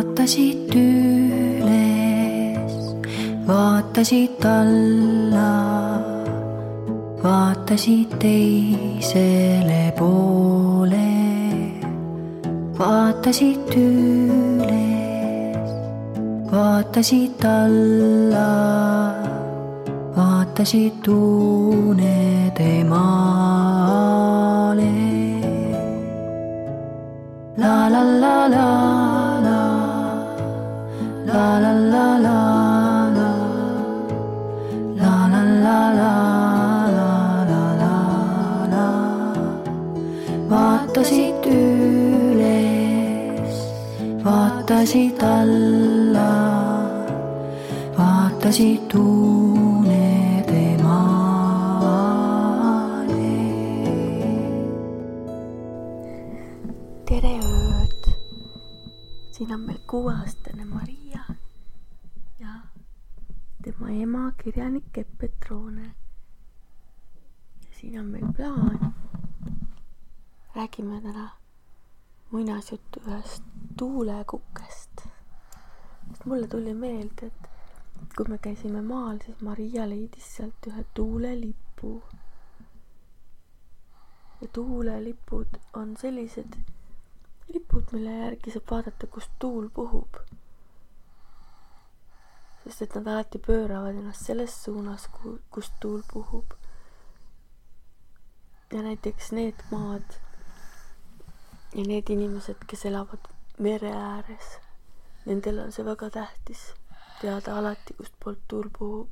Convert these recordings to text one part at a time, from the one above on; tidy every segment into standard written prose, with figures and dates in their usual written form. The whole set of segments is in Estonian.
vaatasid üles, vaatasid alla, vaatasid teisele poole, vaatasid üles, vaatasid alla, vaatasid unede maale. La la la la la, la la la la la, la la la la la la la la. Vaatasid üles, vaatasid alla, vaatasid unede maale. Tere ööd! Siin on meil 6-aastane Maria ja tema ema kirjanik Petrone. Ja siin on meil plaan. Räägime täna muinasjuttu ühest tuulekukest. Sest mulle tuli meelde, et kui me käisime maal, siis Maria leidis sealt ühe tuulelipu. Ja tuulelipud on sellised lipud, mille järgi saab vaadata, kust tuul puhub. Sest et nad alati pööravad ennast selles suunas, kust tuul puhub. Ja näiteks need maad ja need inimesed, kes elavad mere ääres, nendel on see väga tähtis teada alati, kust poolt tuul puhub.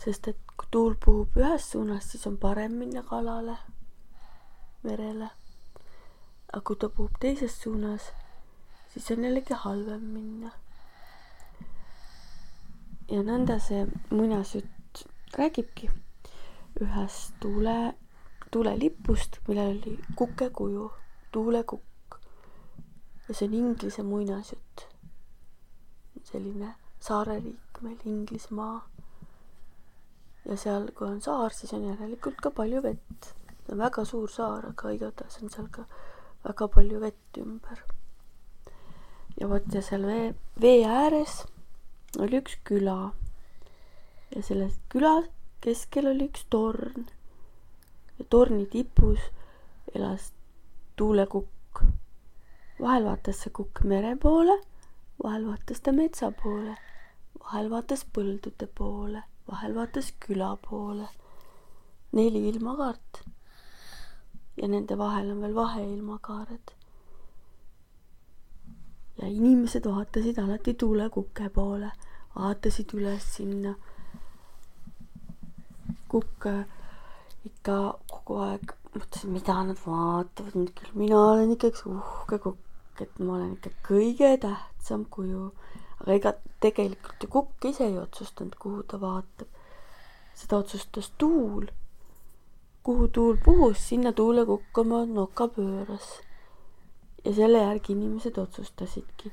Sest et kui tuul puhub ühes suunas, siis on parem minna kalale, merele. Aga kui ta puhub teises suunas, siis on jällegi halvem minna. Ja nõnda see muinasjutt räägibki ühest tuulelipust, millel oli kukekuju, tuulekukk. Ja see on Inglise muinasjutt. Selline saareriik meil, Inglismaa. Ja seal, kui on saar, siis on järelikult ka palju vett. See on väga suur saar, aga igatahes on seal ka väga palju vett ümber. Ja vot ja seal vee ääres oli üks küla. Ja selles küla keskel oli üks torn. Ja torni tipus elas tuulekukk. Vahel vaatas see kukk mere poole, vahel vaatas ta metsa poole, vahel vaatas põldude poole, vahel vaatas küla poole. 4 ilmakaart. Ja nende vahel on veel vaheilmakaared. Ja inimesed vaatasid alati tuulekukke poole, vaatasid üles sinna. Kukk ikka kogu aeg mõtlesin, mida nad vaatavad. Küll mina olen ikka üks uhke kukk, et ma olen ikka kõige tähtsam kuju. Aga ega tegelikult ju kukk ise ei otsustanud, kuhu ta vaatab. Seda otsustas tuul. Kuhu tuul puhus, sinna tuulekukk oma noka pööras. Ja selle järgi inimesed otsustasidki,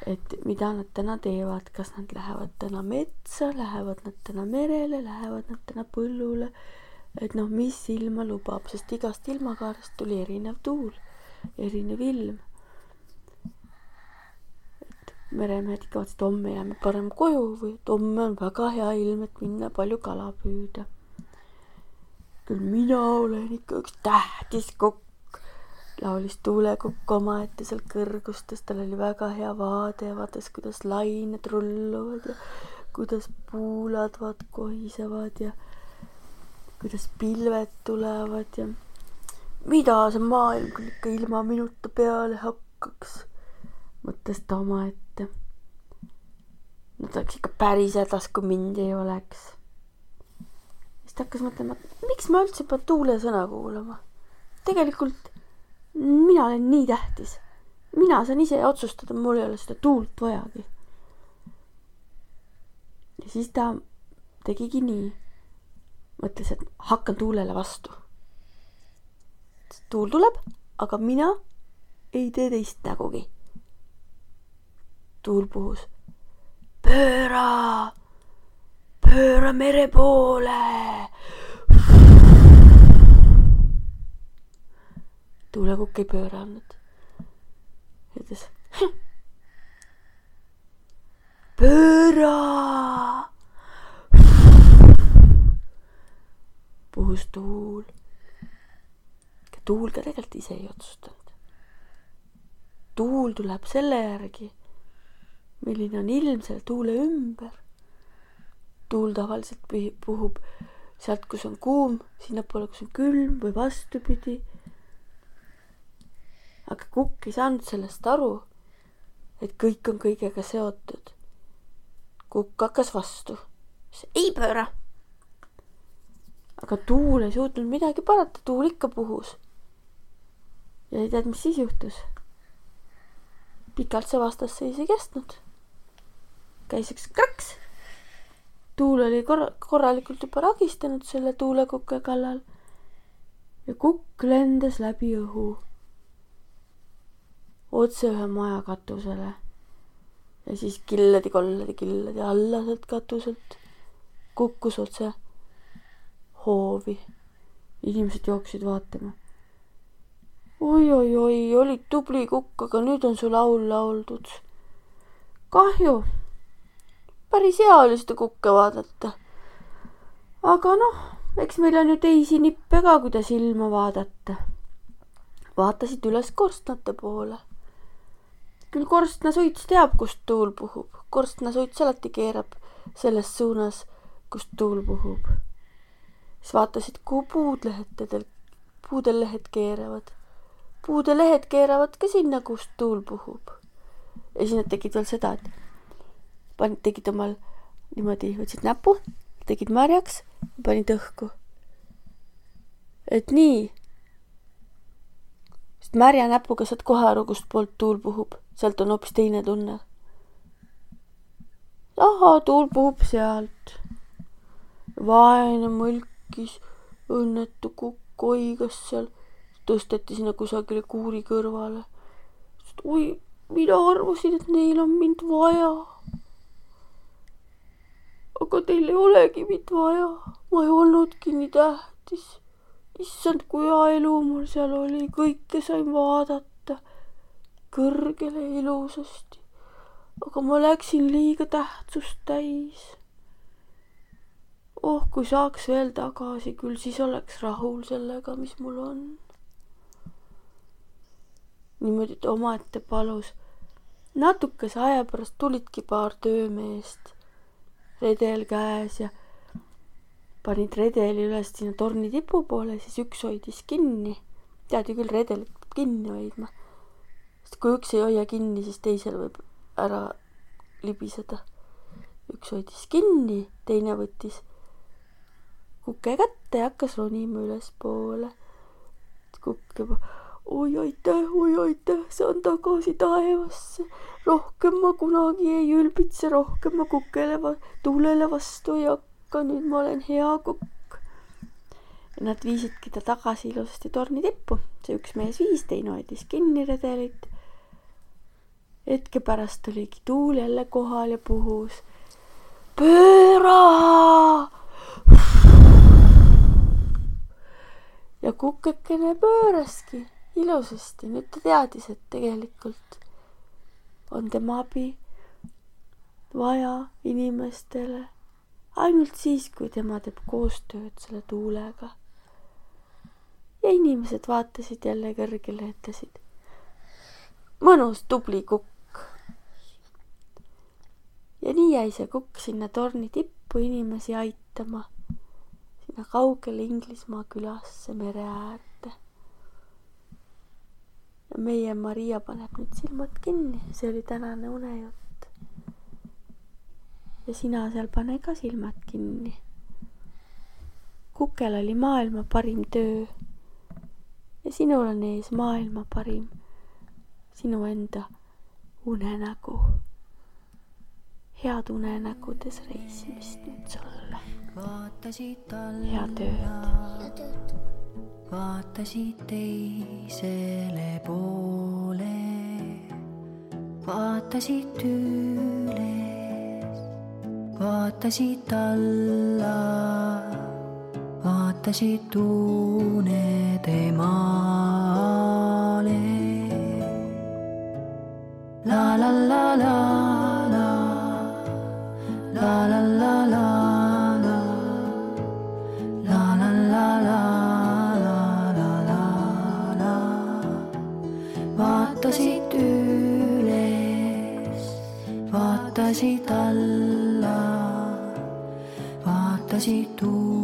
et mida nad täna teevad. Kas nad lähevad täna metsa, lähevad nad täna merele, lähevad nad täna põllule. Et mis ilma lubab, sest igast ilmakaarest tuli erinev tuul, erinev ilm. Et meremehed ikka vaatasid, et homme jääme parem koju või et homme on väga hea ilm, et minna palju kala püüda. Küll mina olen ikka üks tähtis kukk, laulis tuulekukk omaette seal kõrgustes. Tal oli väga hea vaade ja vaatas, kuidas lained rulluvad ja kuidas puulad kohisevad ja kuidas pilved tulevad ja mida see maailm küll ikka ilma minuta peale hakkaks, mõtles ta omaette. No ta oleks ikka päris hädas, kui mind ei oleks. Siis ta hakkas mõtlema, miks ma üldse pean tuule sõna kuulama? Tegelikult mina olen nii tähtis. Mina saan ise otsustada, mul ei ole seda tuult vajagi. Ja siis ta tegigi nii. Mõtles, et hakkan tuulele vastu. Tuul tuleb, aga mina ei tee teist nägugi. Tuul puhus. Pööra mere poole. Tuulekukk ei pööranud. Ütles, puhus tuul. Tuul ka tegelikult ise ei otsustanud. Tuul tuleb selle järgi, milline on ilm selle tuule ümber. Tuul tavaliselt puhub sealt, kus on kuum, sinnapoole, kus on külm või vastupidi. Aga kukk ei saanud sellest aru, et kõik on kõigega seotud. Kukk hakkas vastu. Ei pööra. Aga tuul ei suutnud midagi parata, tuul ikka puhus. Ja ei tead, mis siis juhtus. Pikalt see vastasseis ei kestnud. Käis üks kraks. Tuul oli korralikult juba ragistanud selle tuulekukke kallal ja kukk lendas läbi õhu otse ühe maja katusele ja siis killedi alla sealt katuselt kukkus otse hoovi. Inimesed jooksid vaatama. Oi, olid tubli kukk, aga nüüd on su laul lauldud. Kahju. Päris hea oli seda kukke vaadata. Aga eks meil on ju teisi nippe ka, kuidas ilma vaadata. Vaatasid üles korstnate poole. Küll korstnasuits teab, kust tuul puhub. Korstnasuits alati keerab selles suunas, kust tuul puhub. Siis vaatasid, kuhu puudel lehed keeravad. Puude lehed keeravad ka sinna, kust tuul puhub. Ja siis nad tegid veel seda, et tegid omal niimoodi, võtsid näpu, tegid märjaks ja panid õhku. Et nii. Sest märja näpuga saad kohe aru, kust poolt tuul puhub. Sealt on hoopis teine tunne. Aha, tuul puhub sealt. Vaene mõlkis, õnnetu kukk oigas seal. Tõsteti sinna kusagile kuuri kõrvale. Oi, mina arvasin, et neil on mind vaja. Aga teil ei olegi mind vaja. Ma ei olnudki nii tähtis. Issand, kui hea elu mul seal oli. Kõike sain vaadata. Kõrgele ilusasti. Aga ma läksin liiga tähtsust täis. Oh, kui saaks veel tagasi, küll siis oleks rahul sellega, mis mul on. Niimoodi omaette palus. Natukese aja pärast tulidki paar töömeest. Redel käes ja panid redeli üles sinna torni tipu poole, siis üks hoidis kinni. Tead ju küll, redelit peab kinni hoidma. Sest kui üks ei hoia kinni, siis teisel võib ära libiseda. Üks hoidis kinni, teine võttis kukke kätte ja hakkas ronima üles poole. Kukk juba, oi aitäh, saan tagasi taevasse. Rohkem ma kunagi ei ülbitse, rohkem ma kukele tuulele vastu ei hakka, nüüd ma olen hea kukk. Ja nad viisidki ta tagasi ilusasti torni tippu. See üks mees viis, teine hoidis kinni redelit. Hetke pärast oligi tuul jälle kohal ja puhus. Pööra! Ja kukkekene pööraski ilusasti. Nüüd ta teadis, et tegelikult on tema abi vaja inimestele ainult siis, kui tema teeb koostööd selle tuulega. Ja inimesed vaatasid jälle kõrgele, ütlesid. Mõnus, tubli kukk. Ja nii jäi see kukk sinna torni tippu inimesi aitama. Sinna kaugele Inglismaa külasse mere äärde. Ja meie Maria paneb nüüd silmad kinni. See oli tänane unejutt. Ja sina seal pane ka silmad kinni. Kukel oli maailma parim töö. Ja sinul on ees maailma parim. Sinu enda unenägu. Head unenägudes reisimist nüüd sulle. Head ööd. Vaatasid teisele poole. Vaatasid üles. Vaatasid alla. Vaatasid unede maale. La la la la la. La la la la la. La la la la. vaatasid alla, vaatasid tuule.